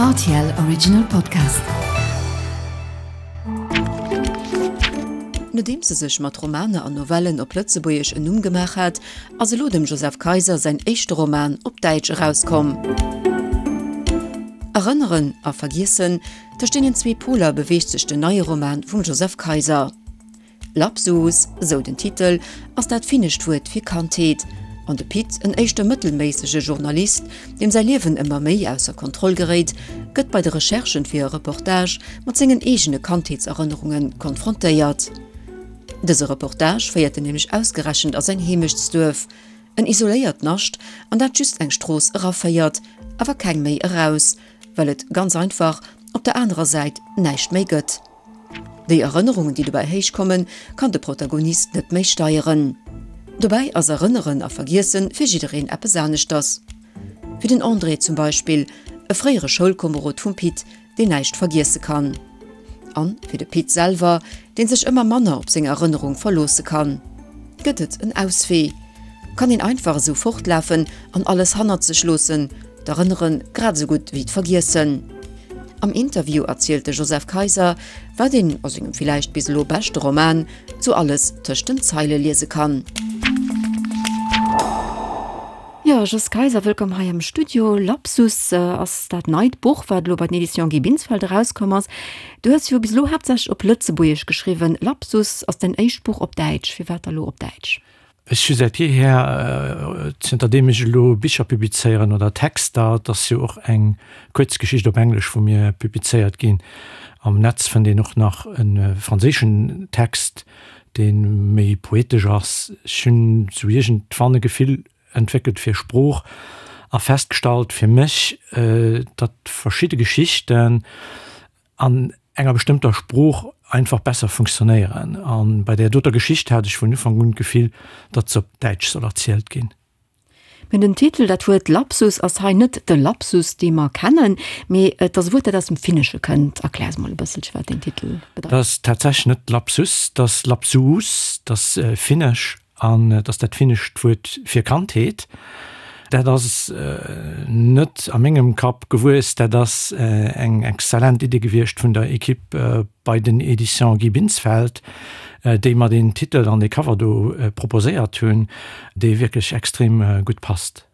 Rtl Original Podcast. Nodeems e sech mat Romaner an Novellen op Lëtzebuergesch en Numm gemaach hat, ass elo dem Joseph Kayser säin éischte Roman op Däitsch erauskomm. Erënneren a Vergiessen, tëscht deenen zwee Poler beweegt sech den neie Roman vum Joseph Kayser. Lapsus, esou den Titel, ass dat finnescht Wuert fir Kandheet. An de Pit, en éischter mëttelméissege Journalist, deem säi Liewen ëmmer méi ausser Kontroll geréit, gëtt bei de Recherchen fir e Reportage mat sengen eegene Kandheetserënnerunge konfrontéiert. Dëse Reportage féiert en nämlech ausgerechent a säin Heemechtsduerf, en isoléiert Nascht, an dat just eng Strooss eraféiert, awer keng méi eraus, well et ganz einfach op der anerer Säit näischt méi gëtt. Déi Erënnerungen, déi dobäi héich kommen, kann de Protagonist net méi steieren. Dobäi ass Erënneren a Vergiessen fir jiddereen eppes aneschters. Fir den André zum Beispill, e fréiere Schoulkomerod vum Pit, deen näischt vergiesse kann. An fir de Pit selwer, deen sech ëmmer manner op seng Erënnerung verloosse kann. Gëtt et en Auswee? Kann een einfach esou fortlafen an alles hannert sech loossen, d'Erënnere grad esou gutt wéi d'Vergiessen? Am Interview erzielt de Joseph Kayser, wat een a sengem villäicht bis elo beschte Roman sou alles tëscht den Zeile liese kann. Jo, Jos Kayser, wëllkomm hei am Studio. Lapsus ass dat neit Buch, wat elo bei den Editions Guy Binsfeld erauskomm ass. Du hues jo bis elo haaptsächlech op Lëtzebuergesch geschriwwen. Lapsus ass däin éischt Buch op Däitsch. Firwat da lo op Däitsch? Ech hu säit jeeher, zënter deem ech elo Bicher publizéieren oder Texter, et ass jo och eng Kuerzgeschicht op Englesch vu mir publizéiert ginn, am Netz fënnt een och nach e franséischen Text, dee méi poetesch ass. Ech hunn sou iergendwann e Gefill entwéckelt fir Sprooch a festgestallt fir mech, datt verschidde Geschichten an enger bestëmmter Sprooch einfach besser funktionéieren. A bei där doter Geschicht hat ech vun Ufank un d'Gefill, datt se op Däitsch soll erzielt ginn. Mä den Titel, dat Wuert Lapsus ass hei net de Lapsus, dee mer kennen, mee et ass e Wuert, dat aus dem Finnesche kënnt. Erklär eis mol e bësselche, wat deen Titel bedeit. Dat ass tatsächlech net Lapsus, dat ass Lapsuus, dat ass Finnesch An et ass dat finnescht Wuert fir Kandheet. Dat ass net a mengem Kapp gewuess, dat ass eng exzellent Idee gewiescht vun der Equipe bei den Editions Guy Binsfeld, déi mer deen Titel an dee Cover do proposéiert hunn, dee wierklech extrem gutt passt.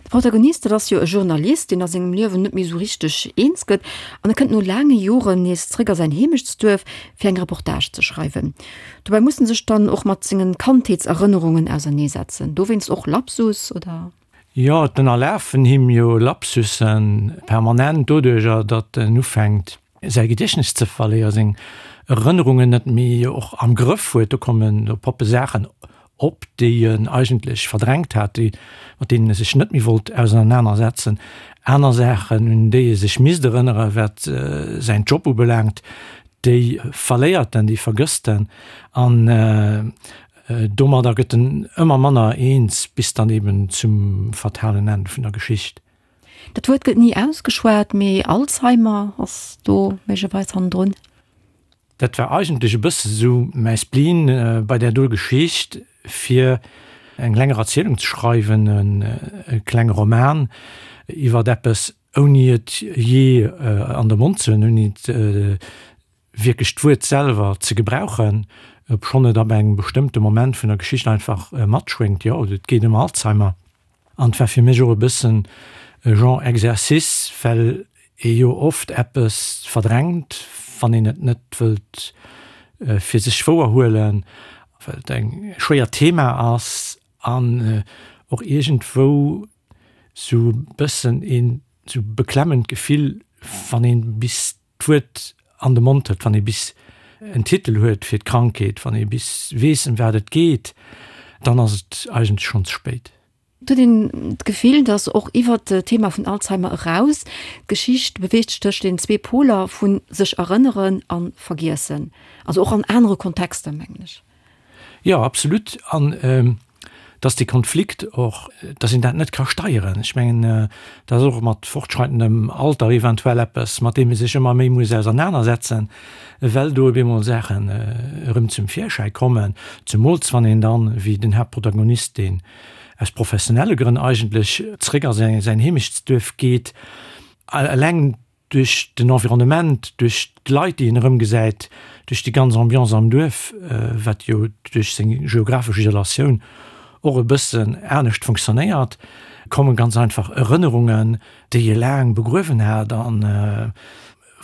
De Protagonist, dat ass jo e Journalist, deen a sengem Liewen net méi esou richteg eens gëtt an e kënnt no laange Joren nees zréck a säin Heemechtsduerf, fir eng Reportage ze schreiwen. Dobäi muss en sech dann och mat sengen Kandheetserënnerungen auserneesetzen. Dowéinst och Lapsus, oder? Jo, et ënnerlafen him jo Lapsussen permanent doduercher, datt en ufänkt säi Gediechtnes ze verléieren, seng Erënnerungen net méi och am Grëff huet. Do kommen, do poppe Saachen op, déi en eigentlech verdrängt hat, déi, mat deenen e sech net méi wollt ausernanersetzen. Aner Saachen, un déi e sech misst erënneren, wat säin Job ubelaangt, déi verléiert en, déi vergësst en. An domadder gëtt en ëmmer manner eens, bis dann eben zum fatalen Enn vun der Geschicht. Dat Wuert gëtt ni ausgeschwat, mee Alzheimer ass do méiglecherweis hannendrun. Dat war eigentlech e bësse sou mäi Spleen bei där do Geschicht, fir eng länger Erzielung ze schreiwen, e klenge Roman iwwert eppes, ouni et jee an de Mond ze hunn, ouni et wierklech d'Wuert selwer ze gebrauchen, obschonn et ab engem bestëmmte Moment vun der Geschicht einfach matschwéngt, jo, et geet ëm Alzheimer. An et war fir mech och e bëssen e Genre Exercice, well ee jo oft eppes verdrängt, wann een et net wëllt fir sech wouer huelen, well et eng schwéiert Thema ass an och iergendwou sou e bëssen een sou beklemmend Gefill, wann een bis d'Wuert an de Mond huet, wann ee bis en Titel huet fir d'Krankheet, wann ee bis weess, ëm wat et geet, dann ass et eigentlech schonn ze spéit. Et huet een d'Gefill, datt och iwwer d'Thema vun Alzheimer eraus, d'Geschicht beweegt sech tëscht den zwee Poler vu sech erënneren a vergiessen, also och an anere Kontexter, mengen ech. Jo, absolut. An dass dee Konflikt och, dass een dat net ka steieren. Ech mengen, dat ass och mat fortschreitendem Alter eventuell eppes, mat deem ee sech ëmmer méi muss ausernanersetzen, well do op eemol Saachen erëm zum Virschäi kommen, zemools wann een dann, wéi den Haaptprotagonist, deen aus professionelle Grënn eigentlech zréck a säin Heemechtsduerf geet, eleng. Duerch den Environnement, duerch d'Leit, déi een erëmgesäit, duerch déi ganz Ambiance am Duerf, wat jo duerch seng geographesch Isolatioun och e bëssen anescht funktionéiert, komme ganz einfach Erënnerungen, déi e laang begruewen hat a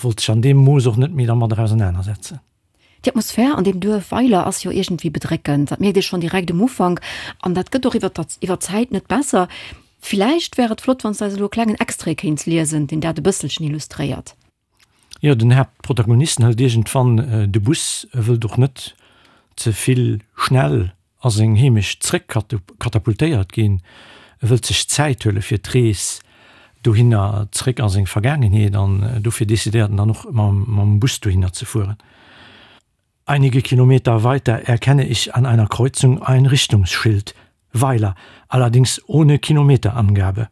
wollt sech an deem Mooss och net méi dermadder ausenanersetzen. Déi Atmosphär an deem Duerf Weiler ass jo iergendwéi bedréckend. Dat mierkt ee schonn direkt um Ufank an dat gëtt och iwwer iwwer d'Zäit net besser. Villäicht wär et flott, wann s de eis elo e klengen Extrait kéints liesen, deen dat e bësselchen illustréiert. Jo, den Haaptprotagonisten hëlt iergendwann de Bus, e wëllt och net ze vill schnell a seng Heemecht zréck katapultéiert ginn. E wëllt sech Zäit huele fir d'Rees dohinner zréck a seng Vergaangenheet an dofir decidéiert en dann och mam Bus dohinner ze fueren. Einige Kilometer weiter erkenne ich an einer Kreuzung ein Richtungsschild, Weiler, allerdings ohne Kilometerangabe.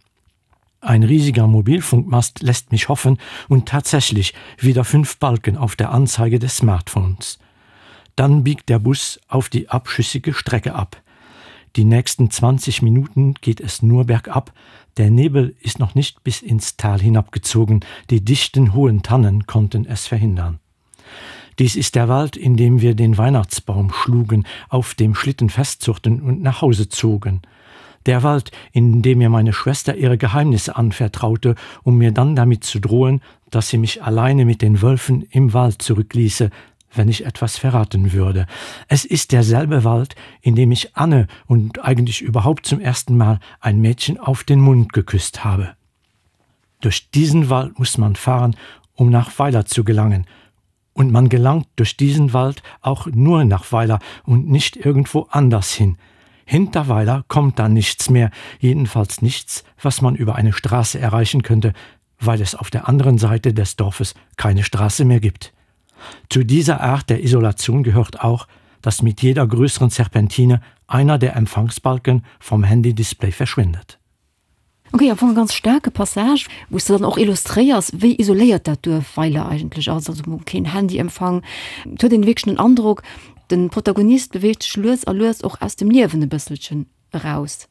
Ein riesiger Mobilfunkmast lässt mich hoffen und tatsächlich wieder fünf Balken auf der Anzeige des Smartphones. Dann biegt der Bus auf die abschüssige Strecke ab. Die nächsten 20 Minuten geht es nur bergab. Der Nebel ist noch nicht bis ins Tal hinabgezogen. Die dichten hohen Tannen konnten es verhindern. Dies ist der Wald, in dem wir den Weihnachtsbaum schlugen, auf dem Schlitten festzuchten und nach Hause zogen. Der Wald, in dem mir meine Schwester ihre Geheimnisse anvertraute, um mir dann damit zu drohen, dass sie mich alleine mit den Wölfen im Wald zurückließe, wenn ich etwas verraten würde. Es ist derselbe Wald, in dem ich Anne und eigentlich überhaupt zum ersten Mal ein Mädchen auf den Mund geküsst habe. Durch diesen Wald muss man fahren, um nach Weiler zu gelangen. Und man gelangt durch diesen Wald auch nur nach Weiler und nicht irgendwo anders hin. Hinter Weiler kommt dann nichts mehr, jedenfalls nichts, was man über eine Straße erreichen könnte, weil es auf der anderen Seite des Dorfes keine Straße mehr gibt. Zu dieser Art der Isolation gehört auch, dass mit jeder größeren Serpentine einer der Empfangsbalken vom Handy-Display verschwindet. Ok, am Fong e ganz staarke Passage, wou s de dann och illustréiers, wéi isoléiert dat Duerf Weiler eigentlech ass, also keen Handyempfang. Et huet een wierklech den Androck, de Protagonist beweegt sech lues a lues och aus dem Liewen e bësselchen eraus.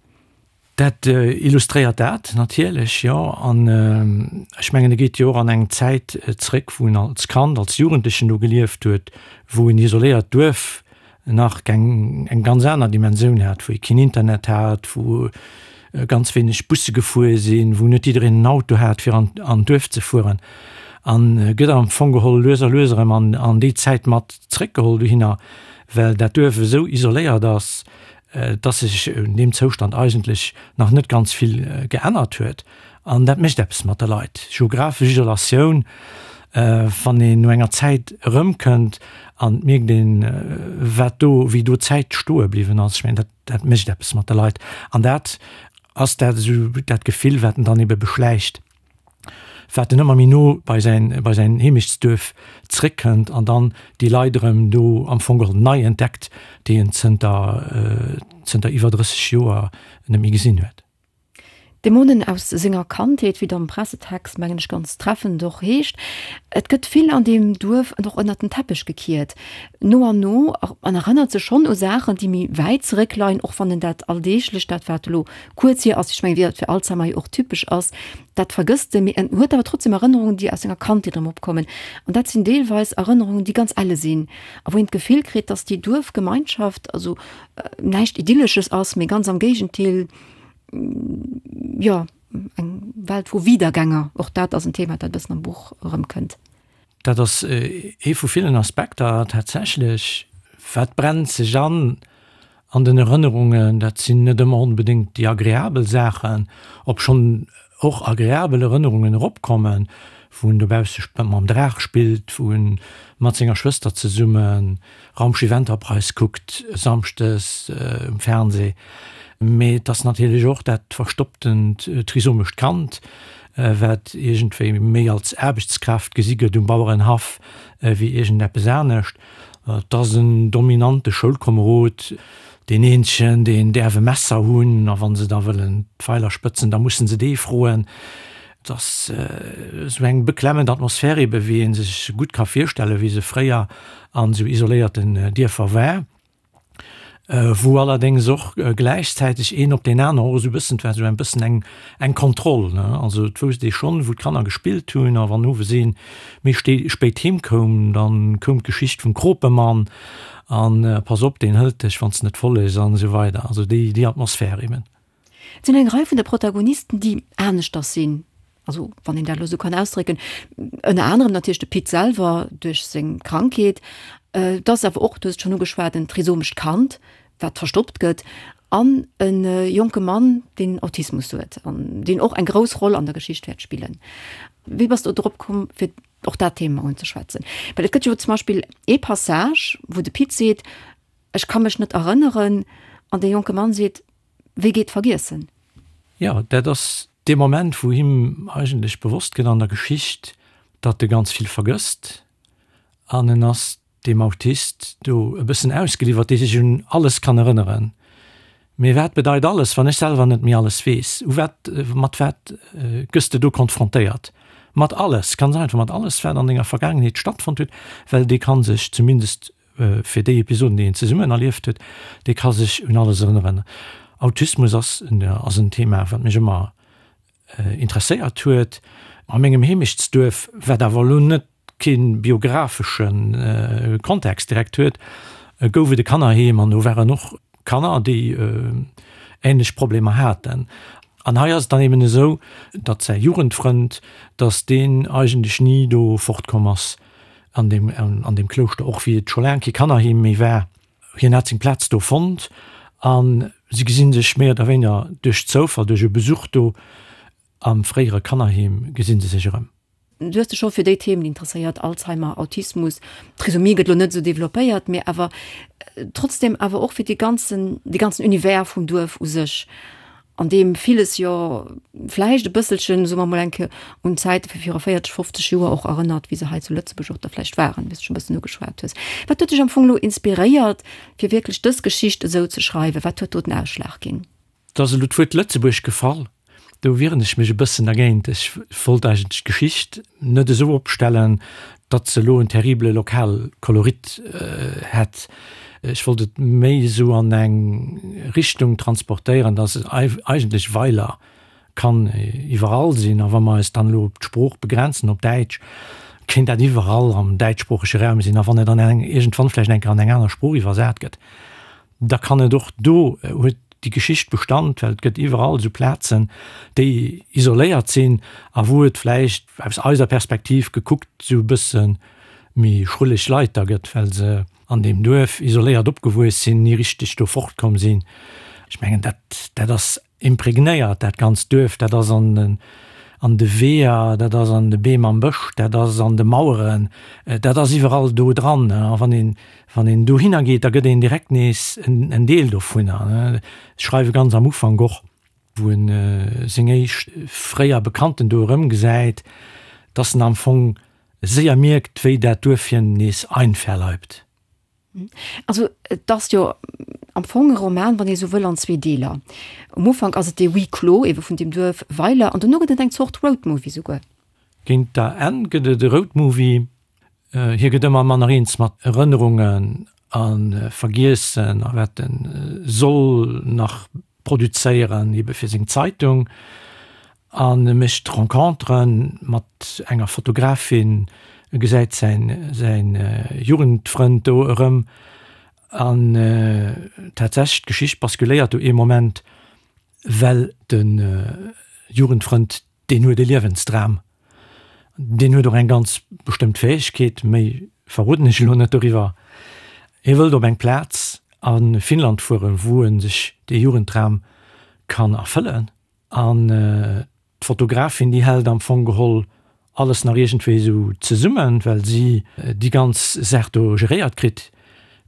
Dat illustréiert dat natierlech, jo. An ech mengen, e geet jo och an eng Zäit zréck, wou en als Kand, als Jugendlechen do gelieft huet, wou en isoléiert Duerf nach eng eng ganz aner Dimensioun hat, wou ee keen Internet hat, wou ganz wéineg Busse gefuer sinn, wou net jiddereen en Auto hat fir an an d'Duerf ze fueren an gëtt am Fong geholl lues a lues erëm an an déi Zäit mat zréckgeholl dohinner, well dat Duerf esou isoléiert ass, dass sech un deem Zoustand eigentlech nach net ganz vill geännert huet. An dat mécht eppes mat de Leit. Geographesch Isolatioun, wann een no enger Zäit erëmkënnt an et mierkt een, wat do, wéi do d'Zäit stoe bliwwen ass, ech mengen, dat, dat mécht eppes mat de Leit. An dat ass dat esou dat Gefill, wat en dann ebe beschläicht, wat en ëmmer méi no bei säin, bei säin Heemechtsduerf zréckkënnt an dann déi Leit erëm do am Fong geholl nei entdeckt, déi en zënter, zënter iwwer 30 Joer net méi gesinn huet. Dämonen aus senger Kandheet, wéi et am Pressetext, mengen ech, ganz treffend och heescht. Et gëtt vill an deem Duerf och ënnert den Teppech gekiert. No an no, en erënnert sech schonn u Saachen, déi méi wäit zeréckleien, och wann en dat Alldeeglecht, dat wat elo kuerz hier ass, ech mengen, wéi dat fir Alzheimer jo och typesch ass, dat vergësst e, mee en huet awer trotzdem Erënnerungen, déi aus senger Kandheet erëm opkommen. An dat sinn deelweis Erënnerungen, déi ganz elle sinn a wou een d'Gefill kritt, dass déi Duerfgemeinschaft, also näischt Idyllesches ass, mee ganz am Géigentil, jo, eng Welt vu Wiedergänger. Och dat ass en Thema, dat e bëssen am Buch erëmkënnt. Dat ass ee vu villen Aspekter tatsächlech. Wat brennt sech an an den Erënnerungen? Dat sinn net ëmmer onbedéngt déi agreabel Saachen, obschonn och agreabel Erënnerungen eropkommen, wou en dobausse mam Draach spillt, wou en mat senger Schwëster zesummen Raumschiff Enterprise kuckt samschdes um Fernseh. Mee et ass natierlech och dat verstopptent trisomescht Kand, wat iergendwéi méi als Aarbechtskraaft gesi gëtt um Bauerenhaff wéi iergendeppes anescht. Et ass en dominante Schoulkomerod, deen eenzegen, deen däerf e Messer hunn, a wa se da wëllen d'Feiler spëtzen, da musse se dee froen. Et ass esou eng beklemmend Atmosphär ebe wéi ee sech gutt ka virstellen, wéi se fréier an esou isoléierten Dierfer war. Wou allerdéngs och gläichzäiteg een op deen aneren och esou e bëssen, et war esou en bëssen eng, eng Kontroll, ne. Also et wousst ee schonn, wou d'Kanner gespillt hunn a wann owes ee méi spéit heem koum, da koum d'Geschicht vum Kropemann an pass op, deen hëlt dech, wann s de net follegs an esou weider. Also déi, déi Atmosphär eben. Et sinn eng Rei vun de Protagonisten, déi aneschters sinn, also wann een dat elo esou kann ausdrécken, ënner anerem natierlech de Pit selwer duerch seng Krankheet, et ass awer och, du hues et schonn ugeschwat, en trisomescht Kand, wat verstoppt gëtt, an e jonke Mann, deen Autismus huet an deen och eng grouss Roll an der Geschicht wäert spillen. Wéi bass du drop komm, fir och dat Thema unzeschwätzen? Well et gëtt jo zum Beispill ee Passage, wou de Pit seet, Ech ka mech net erënneren, an dee jonke Mann seet, Wéi geet vergiessen? Jo, dat ass dee Moment, wou him eigentlech bewosst gëtt an der Geschicht, datt e ganz vill vergësst. An en ass deem Autist do e bëssen ausgeliwwert, dee sech un alles kann erënneren. Mee wat bedeit alles, wann ech selwer net méi alles weess? U wat, mat wat gëss de do konfrontéiert? Mat alles, ganz einfach mat alles, wat an denger Vergaangenheet stattfonnt huet, well dee ka sech zumindest fir déi Episoden, déi een zesummen erlieft huet, dee ka sech un alles erënneren. Autismus ass ass en Thema, wat mech ëmmer interesséiert huet. A mengem Heemechtsduerf, wat awer elo net kee biographesche Kontext direkt huet, gouf et e Kannerheem an do waren och Kanner, déi änlech Problemer haten. An hei ass et dann eben esou, datt säi Jugendfrënd, datt deen eigentlech ni do fortkomm ass an deem, an deem Klouschter, och wéi et scho laang kee Kannerheem méi war. Hien hat seng Plaz do fonnt a si gesi sech méi oder wéineger duerch Zoufall, duerch e Besuch do am fréiere Kannerheem, gesi se sech erëm. Du hues dech scho fir déi Themen interesséiert, Alzheimer, Autismus, Trisomie gëtt elo net esou developpéiert, mee awer trotzdem awer och fir dee ganzen, dee ganzen Univers vum Duerf u sech, an deem villes jo vläicht e bësselchen, soe mer mol eng Kéier, un d'Zäite vu viru 40, 50 Joer och erënnert, wéi se hei zu Lëtzebuerg och da vläicht waren, wéi s de scho e bëssen ugeschwat hues. Wat huet dech am Fong elo inspiréiert, fir wierklech dës Geschicht esou ze schreiwen? Wat huet do den Ausschlag ginn? Et ass elo d'Wuert Lëtzebuerg gefall. Do wieren ech mech e bëssen dergéint. Ech wollt eigentlech d'Geschicht net esou opstellen, datt se elo en terrible Lokalkolorit hätt. Ech wollt et méi esou an eng Richtung transportéieren, datt et eigentlech Weiler kann iwwerall sinn. A wa mer eis dann elo op d'Sprooch begrenzen, op Däitsch, kéint dat iwwerall am däitschsproochege Raum sinn. A wann et dann iergendwann vläicht eng Kéier an eng aner Sprooch iwwersat gëtt, da kann et och do huet déi Geschicht Bestand, well et gëtt iwwerall esou Plazen, déi isoléiert sinn a wou et vläicht aus eiser Perspektiv gekuckt esou e bësse méi schrulleg Leit da gëtt, well se an deem Duerf isoléiert opgewuess sinn, ni richteg do fortkomm sinn. Ech mengen, dat, dat ass Impregnéiert dat ganzt Duerf, dat ass an den an de Weeër, dat ass an de Beem am Bësch, dat ass an de Maueren, dat ass iwwerall do dran. A wann een wann een dohinner geet, da gëtt een direkt nees en en Deel dovunner. Ech schreiwe ganz am Ufank och, wou en seng éischt fréier Bekannten do erëmgesäit, dass en am Fong séier mierkt, wéi dat Duerf hien nees einverleibt. Also et ass jo am Fong e Roman, wann ee sou wëll, an zwee Deeler. Um Ufank ass et dee Huis clos ebe vun deem Duerf Weiler an dono gëtt et eng Zort Roadmovie souguer. Géint der Enn gëtt et e Roadmovie. Hie gëtt ëmmer manner eens mat Erënnerungen a Vergiessen a wat e soll nach produzéieren, ebe fir seng Zeitung, an e mécht Rencontere mat enger Fotografin, e gesäit säin säin Jugendfrënd do erëm, an tatsächlech d'Geschicht basculéiert do ee Moment, well de Jugendfrënd Deen huet e Liewensdram. Deen huet och eng ganz bestëmmt Fäegkeet, méi verroden ech elo net doriwwer. Hie wëllt op eng Plaz a Finnland fueren, wou e sech dee Jugenddram kann erfëllen. An d'Fotografin, déi hält am Fong geholl alles nach iergendwéi esou zesummen, well si déi ganz Saach do geréiert kritt.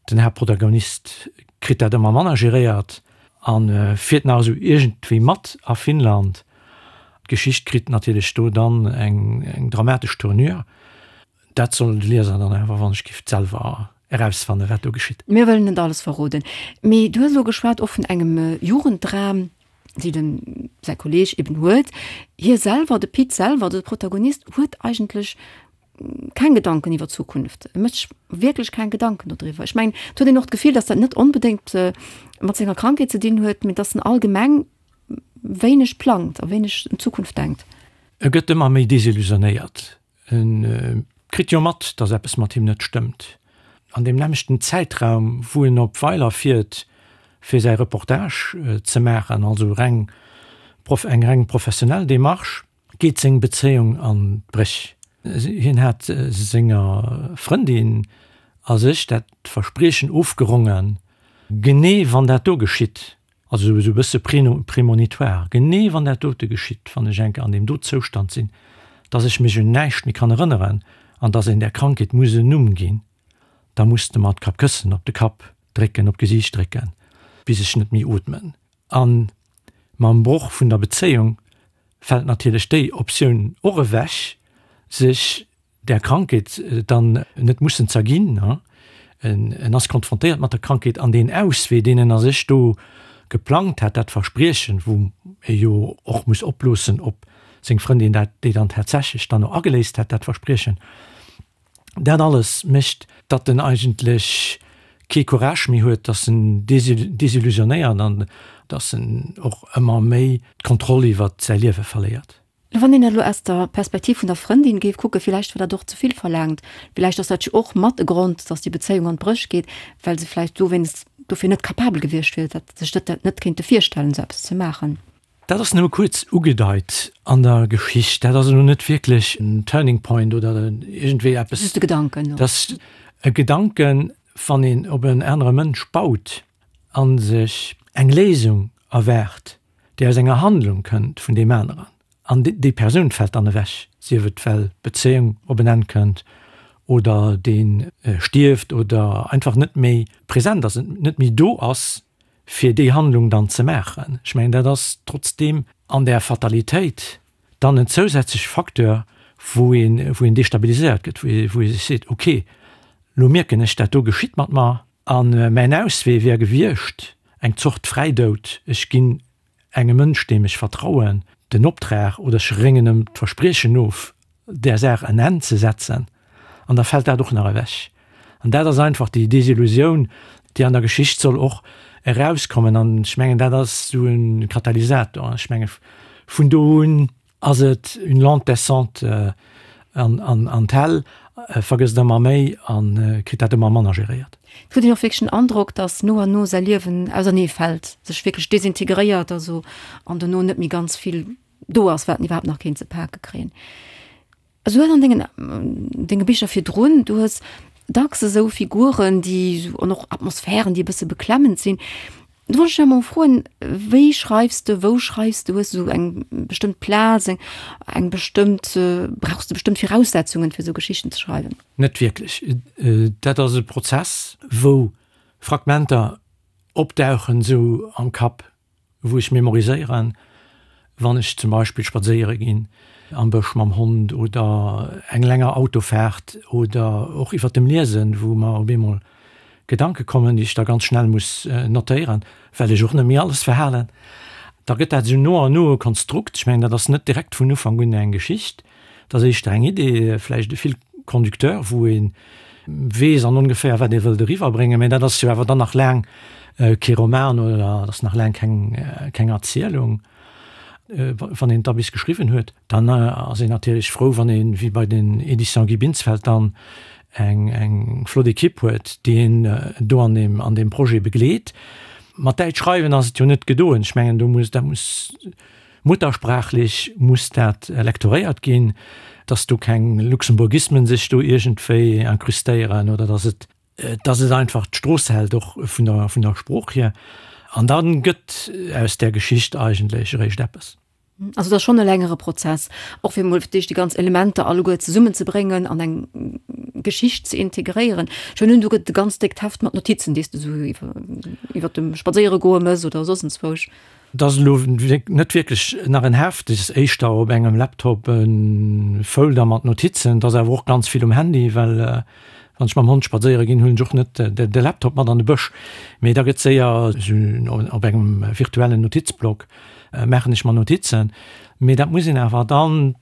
Den Haaptprotagonist kritt dat ëmmer manner geréiert a fiert nach esou iergendwéi mat a Finnland. D'Geschicht kritt natierlech do dann eng dramatesch Tournure. Dat soll de Lieser dann awer, wann ech giff, selwer erausfannen, wat do geschitt. Mir wëllen net alles verroden, mee du hues elo geschwat och vun engem Jugenddram, dee dem säi Kolleeg eben huet. Hie selwer, de Pit selwer, de Protagonist, huet eigentlech. keng Gedanken iwwer d'Zukunft. E mécht sech wierklech keng Gedanken dodriwwer. Ech mengen, et huet een och d'Gefill, datt dat net onbedéngt mat senger Krankheet ze dinn huet, mee datt en allgemeng wéineg plangt a wéineg un d'Zukunft denkt. E gëtt ëmmer méi desillusionéiert. E kritt jo mat, datt eppes mat him net stëmmt. An deem nämmlechten Zäitraum, wou en op Weiler fiert, fir säi Reportage ze maachen, also reng eng reng professionell Demarche, geet seng Bezéiung an d'Bréch. Hien hat senger Frëndin a sech dat Verspriechen ofgerongen, genee wann dat do geschitt, also esou e bësse prémonitoire, genee wann dat dote geschitt, wann ech enke an deem do Zoustand sinn, dass ech mech un näischt méi kann erënneren an dass een där Krankheet muss en Numm ginn, da muss de mer d'Kappkëssen op de Kapp drécken, op d'Gesiicht drécken, bis ech net méi ootmen. A mam Broch vun der Bezéiung fält natierlech déi Optioun och ewech, sech där Krankheet dann net mussen z'erginn. En ass konfrontéiert mat der Krankheet an deen Auswee, deen en a sech do geplangt hat, dat Verspriechen, wou e jo och muss oploossen, ob seng Frëndin dat, déi dann tatsächlech dann och ageléist hat, dat Verspriechen, Dat alles mécht, datt en eigentlech kee Courage méi huet, datt en desillusionéiert an datt en och ëmmer méi d'Kontroll iwwer säi Liewe verléiert. Wann een dat elo aus der Perspektiv vun der Frëndin géif kucken, villäicht war dat och ze vill verlaangt. Villäicht ass dat jo och mat e Grond, datt déi Bezéiung an d'Bréch geet, well se vläicht dowéinst dofir net capabel gewiescht wier, dat sech dat net kéinte virstellen, esou eppes ze maachen. Dat ass nëmme kuerz ugedeit an der Geschicht. Dat ass elo net wierklech en Turning Point oder iergendwéi eppes. Just e Gedanken. Dat ass e Gedanken, wann een op en anere Mënsch baut a sech eng Léisung erwaart, déi aus enger Handlung kënnt vun deem aneren. An déi Persoun fält dann ewech, sief et well d'Bezéiung op en Enn kënnt oder dee stierft oder einfach net méi present ass, net méi do ass fir déi Handlung dann ze maachen. Ech mengen, dat ass trotzdeem an där Fatalitéit dann en zousätzleche Facteur, wou een, wou een destabiliséiert gëtt, wou ee, wou ee sech seet, okay, lo mierken ech, dat do geschitt mat mer a mäin Auswee wär gewiescht eng Zort Fräidoud, ech ginn engem Mënsch, deem ech vertrauen, den Optrag oder ech réngen em d'Verspriechen of, där Saach en Enn ze setzen, an da fält dat och nach ewech. An dat ass einfach déi Desillusioun, déi an der Geschicht soll och erauskommen. An ech mengen, dat ass esou e Katalysator. Ech menge vun do un ass et une lente descente an d'Hell, vergësst ëmmer méi a kritt dat ëmmer manner geréiert. Et huet een och wierklech den Androck, datt no an no säi Liewen ausernee fält, sech wierklech desintegréiert also an dono net méi ganz vill do ass, wat en iwwerhaapt nach kéint ze pake kréien. Also du hues an dengen, denge Bicher virdrun, du hues dacks esou Figuren, déi esou, an och Atmosphären, déi e bësse beklemmend sinn. Do wollt ech dech emol froen, wéi schreifs de, wou schreifs de? Hues du esou eng bestëmmt Plaz, eng, eng bestëmmt, brauchs de bestëmmt Viraussetzungen, fir esou Geschichten ze schreiwen? Net wierklech. Dat ass e Prozess, wou Fragmenter opdauchen esou am Kapp, wou ech memoriséieren, wann ech zum Beispill spadséiere ginn am Bësch mam Hond oder eng länger Autofaart oder och iwwert dem Liesen, wou mer op eemol Gedanke kommen, déi ech da ganz schnell muss notéieren, well ech och net méi alles verhalen. Da gëtt dat esou no an no e Konstrukt. Ech mengen, dat ass net direkt vun Ufank un eng Geschicht. Dat ass éischter eng Idee, vläicht e Fil conducteur, wou ee weess an ongeféier, wat ee wëllt eriwwerbréngen. Mä dat ass jo awer dann nach laang kee Roman oder dat ass nach laang keng, keng Erzielung. Wann een et da bis geschriwwen huet, dann ass een natierlech frou, wann een, wéi bei den Éditions Guy Binsfeld dann, eng, eng flott Ekipp huet, déi een do an deem, an deem Projet begleet. Mat Däitsch schreiwen ass et jo net gedoen. Ech mengen, do muss, dat muss Muttersprachlech muss dat lektoréiert ginn, dass do keng Luxemburgismen sech do iergendwéi incrustéieren oder dass et, dass et einfach d'Strooss hält, och vun der, vun der Sprooch hier. An da gëtt aus där Geschicht eigentlech eréischt eppes. Also et ass schonn e längere Prozess, och fir emol fir d'éischt déi ganz Elementer alleguer zesummenzebréngen an eng Geschicht ze integréieren. Ech hunn un, do gëtt et e ganz déckt Heft mat Notizen, déi s de esou iwwer, iwwer dem Spadséieregoe mëss oder soss enzwousch. Et ass elo net wierklech nach en Heft, et ass éischter op engem Laptop e Folder mat Notizen. Et ass awer och ganz vill um Handy, well wann ech mam Hond spadséiere ginn, huelen ech och net de Laptop mat an de Bësch, mee da gëtt séier esou op engem virtuellen Notizblock maachen ech mer Notizen. Mee dat muss een awer dann.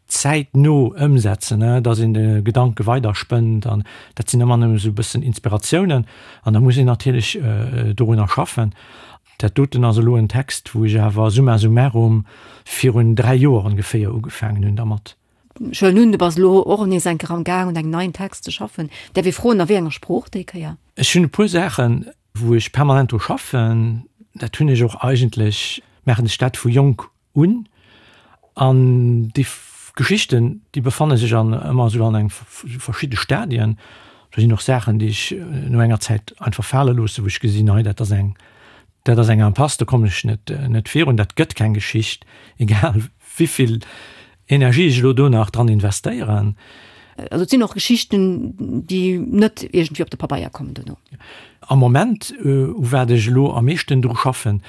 zäitno ëmsetzen, dass een de Gedanke weiderspënnt an dat sinn ëmmer nëmme sou e bëssen Inspiratiounen an da muss een natierlech dorunner schaffen. Dat doten ass elo en Text, wou ech awer summa summarum virun 3 Joer ongeféier ugefaangen hunn dermat. Ech huelen un, du bass elo och nees eng Kéier am Gaang un engem neien Text ze schaffen. Däerf ee froen, a wéi enger Sprooch déi Kéier? Ech hunn e puer Saachen, wou ech permanent dru schaffen. Dat hunn ech och eigentlech, maachen ech dat vu jonk un. An déi Geschichten, déi befanne sech an ëmmer esou an eng verschidde Stadien. Do sinn och Saachen, déi ech no enger Zäit einfach fale loosse, wou ech gesinn, hei dat ass eng, dat ass eng Impasse, do kommen ech net, net virun, dat gëtt keng Geschicht, egal wéivill Energie ech elo do nach dran investéieren. Also et sinn och Geschichten, déi net iergendwéi op de Pabeier kommen duerno? Am Moment, u wat ech elo am meeschten dru schaffen,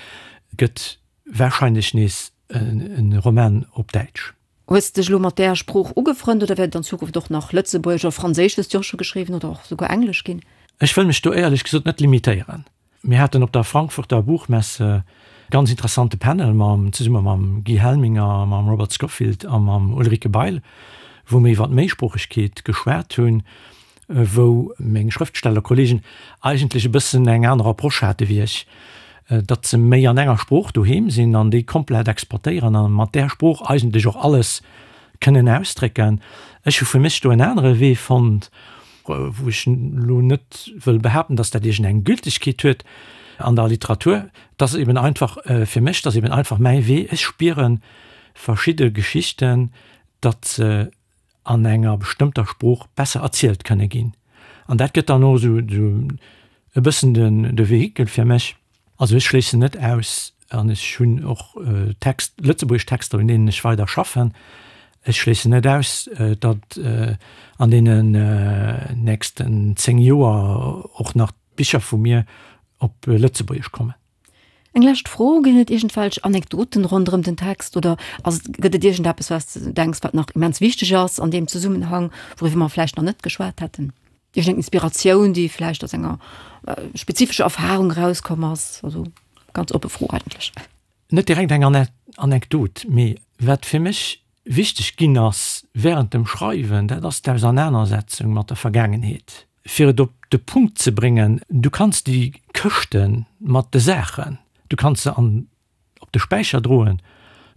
gëtt Wahrscheinlech nees en Roman op Däitsch. Hues de dech elo mat där Sprooch ugefrënnt oder wäert et an Zukunft och nach Lëtzebuergesch oder Franséisch, hues de jo och scho geschriwwen, oder och souguer Englesch ginn? Ech wëll mech do éierlech gesot net limitéieren. Mir haten op der Frankfurter Buchmesse e ganz interessante Panel mam, zesumme mam Guy Helminger, mam Robert Scofield a mam Ulrike Bail, wou mir iwwer d'Méisproochegkeet geschwat hunn. wou meng Schrëftstellerkollegen eigentlech e bëssen eng aner Approche hate wéi ech, datt se méi an enger Sprooch doheem sinn an déi komplett exportéieren a mat där Sprooch eigentlech och alles kënnen ausdrécken. Ech hu fir mech do en anere Wee fonnt, wou ech elo net wëll behaapten, datt dat iergendeng Gültegkeet huet an der Literatur. Et ass eben einfach fir mech, et ass eben einfach mäi Wee. Ech spiere verschidde Geschichten, datt se an enger bestëmmter Sprooch besser erzielt kënne ginn. An dat gëtt dann och esou e bëssen de Vehikel fir mech. Also ech schléissen net aus, an ech hunn och Text, lëtzebuergesch Texter, un deenen ech weider schaffen, ech schléissen net aus, datt an deenen nächsten 10 Joer och nach Bicher vu mir op Lëtzebuergesch kommen. Eng lescht Fro, Ginn et iergendwelch Anekdoten ronderëm den Text oder ass et, gëtt et iergendeppes, wat s de denks, wat nach immens wichteg ass an deem Zesummenhang, wouriwwer mer vläicht nach net geschwat hätten? Iergendeng Inspiratioun, déi vläicht aus enger spezifescher Erfarung erauskomm ass? Also ganz oppe Fro eigentlech. Net direkt eng Anekdot, mee wat fir mech wichteg ginn ass während dem Schreiwen, dat ass d'Ausernanersetzung mat der Vergaangenheet. Fir et op de Punkt ze bréngen, du kanns déi Këschte mat de Saachen, du kanns se an op de Späicher droen,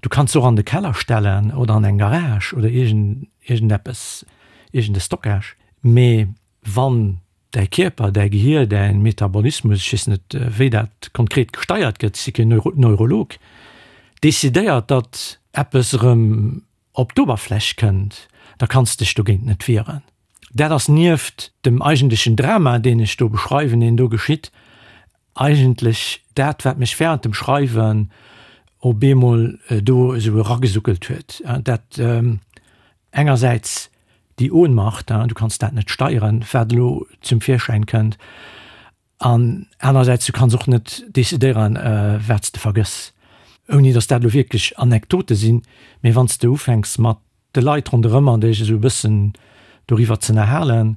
du kanns se och an de Keller stellen oder an eng Garage oder iergend iergendeppes, iergend e Stockage, mee wann däi Kierper, däi Gehier, däi Metabolismus, ech weess net wéi dat konkret gesteiert gëtt, ech si keen Neurolog, decidéiert, datt eppes erëm op d'Oberfläch kënnt, da kanns de dech dogéint net wieren. Dat ass nieft dem eigentlechen Drama, deen ech do beschreiwen, deen do geschitt, eigentlech dat, wat mech während dem Schreiwen op eemol do esou eragesuckelt huet. Dat engersäits déi Ohnmacht, du kanns dat net steieren, wat elo zum Virschäin kënnt, An anerersäits, du kanns och net decidéieren, wat s de vergëss, ouni datt dat elo wierklech Anekdote sinn. Mee wann s de ufänks mat de Leit ronderëm an dech esou e bëssen doriwwer z'ënnerhalen,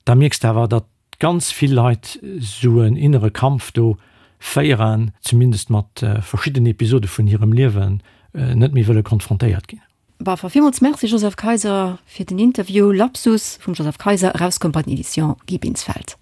da mierks de awer, datt ganz vill Leit esou en innere Kampf do féieren, zumindest mat verschiddenen Episode vun hirem Liewen net méi wëlle konfrontéiert ginn. Bah, villmools Merci Joseph Kayser fir den Interview. Lapsus vum Joseph Kayser, erauskomm bei den Editions Guy Binsfeld.